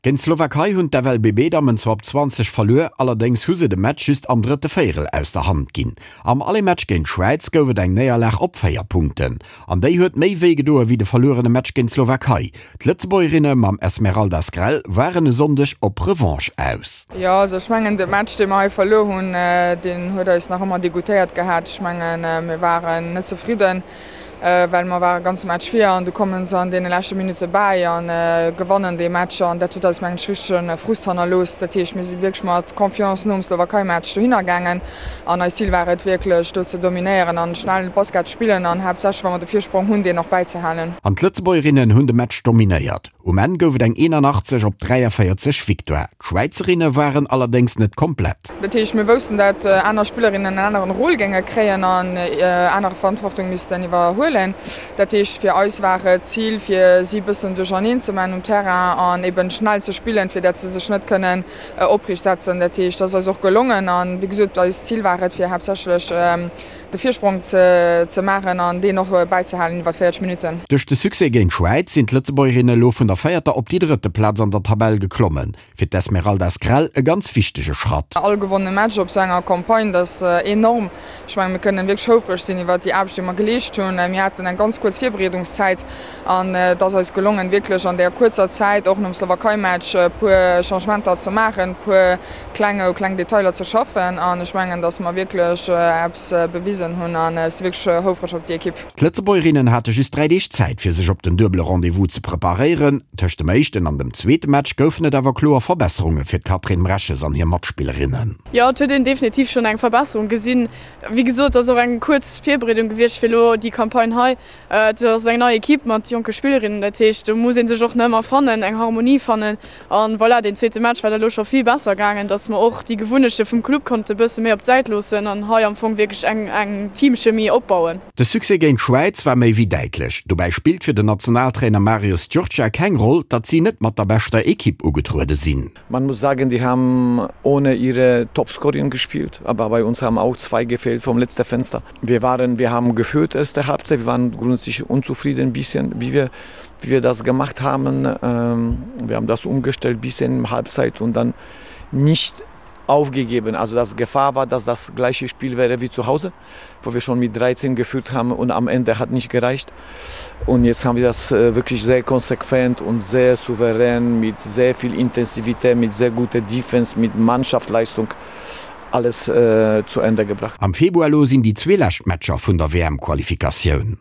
Géint d'Slowakei hunn d'FLBB-Dammen zwar op 20 verluer, allerdéngs hu se de Match just am drëtte Véierel aus der Hand ginn. Am Aller-Match géint d'Schwäiz gouf et eng Néierlag op 4 Punkten. An déi huet méi wéi gedoe wéi de verluerene Match géint d'Slowakei. D'Lëtzebuergerinne mam Esmeralda Skrel waren e Sonndeg op Revanche aus. Jo, also ech mengen de Match dee mer hei verluer hunn, deen huet eis nach ëmmer degoutéiert gehat. Ech mengen mir waren net zefridden. well mer ware ganze Match vir an du kommen se an deene leschte Minutte bäi a gewannen dee Match an dat huet eis mengen ech richtege Frust hannerlooss. Dat heescht mir si wierklech mat Confiance nom Slowakei-Match dohinner gaangen an eist Zil war et wierklech do ze dominéieren an schnell Basket spillen an haaptsächlech wa mer de Virsprong hunn deen och bäizehalen. An d'Lëtzebuergerinnen hunn de Match dominéiert. Um Enn gouf et eng 81 op 43 Victoire. D'Schwäizerinne waren allerdéngs net komplett. Dat heescht, mir woussten, dat aner Spillerinnen en aneren Rôle géinge kréien an anere Verantwortung missten iwwerhuelen. Dat heescht, fir eis war et d'Zil, fir si bëssen duercherneen ze man um Terrain an eben schnell ze spillen, fir dat se sech net kënnen opriicht setzen. Dat heescht, dat ass eis och gelongen an, wéi gesot, eist Zil war et, fir haaptsächlech de Virsprong ze maachen an deen och bäizehalen iwwer 40 Minutten. Duerch de Succès géint d'Schwäiz sinn d'Lëtzebuergerinne elo vun der véierter op déi drëtte Plaz an der Tabell geklommen. Fir d'Esmeralda Skrel e ganz wichtege Schratt. All gewonnene Match op sou enger Campagne, dat ass enorm. Ech mengen, mir kënnen wierklech houfreg sinn iwwer déi Aarbecht, déi mer geleescht hunn. Mir haten eng ganz kuerz Virbereedungszäit an et ass eis gelongen, wierklech an där kuerzer Zäit, och nom Slowakei-Match, e puer Changementer ze maachen, e puer kleng u kleng Detailer ze schaffen an ech mengen, datt mer wierklech eppes bewisen hunn an ech si wierklech houfreg op déi Ekipp. D'Lëtzebuergerinnen hate just 3 Deeg Zäit fir sech op den duebele Rendez-vous ze preparéieren. Tëscht dem éischten an dem zweete Match goufen et awer kloer Verbesserunge fir d'Catherine Mreches an hir Matspillerinnen. Jo, et huet een definitiv schonn eng Verbesserung gesinn. Wéi gesot, et ass och eng kuerz Virbereedung gewiescht fir elo déi Campagne hei. Et ass eng nei Ekipp mat jonke Spillerinnen, dat heescht do muss ee sech och nach ëmmer fannen, eng Harmonie fannen. An voilà, deen zweete Match war da lo scho vill besser gaangen, dass mer och déi Gewunnechte vum Club konnte bësse méi op d'Säit loossen an hei am Fong wierklech eng eng Teamchemie opbauen. De Succès géint d'Schwäiz war méi wéi däitlech. Dobäi spillt fir den Nationaltrainer Marius Giurcea keng Roll, datt si net mat der beschter Ekipp ugetruede sinn. Man muss sagen, die haben ohne ihre Topscorerin gespielt, aber bei uns haben auch zwei gefehlt vom letzten Fenster. Wir waren wir haben geführt erste Halbzeit, wir waren grundsätzlich unzufrieden ein bisschen, wie wir wie wir das gemacht haben. Ähm, wir haben das umgestellt bis in Halbzeit und dann nicht aufgegeben. Also das Gefahr war, dass das gleiche Spiel wäre wie zu Hause, wo wir schon mit 13 geführt haben und am Ende hat nicht gereicht. Und jetzt haben wir das äh, wirklich sehr konsequent und sehr souverän mit sehr viel Intensivität, mit sehr guter Defense, mit Mannschaftsleistung alles äh, zu Ende gebracht. Am Februar elo sinn déi zwee lescht Matcher vun der WM-Qualifikatioun.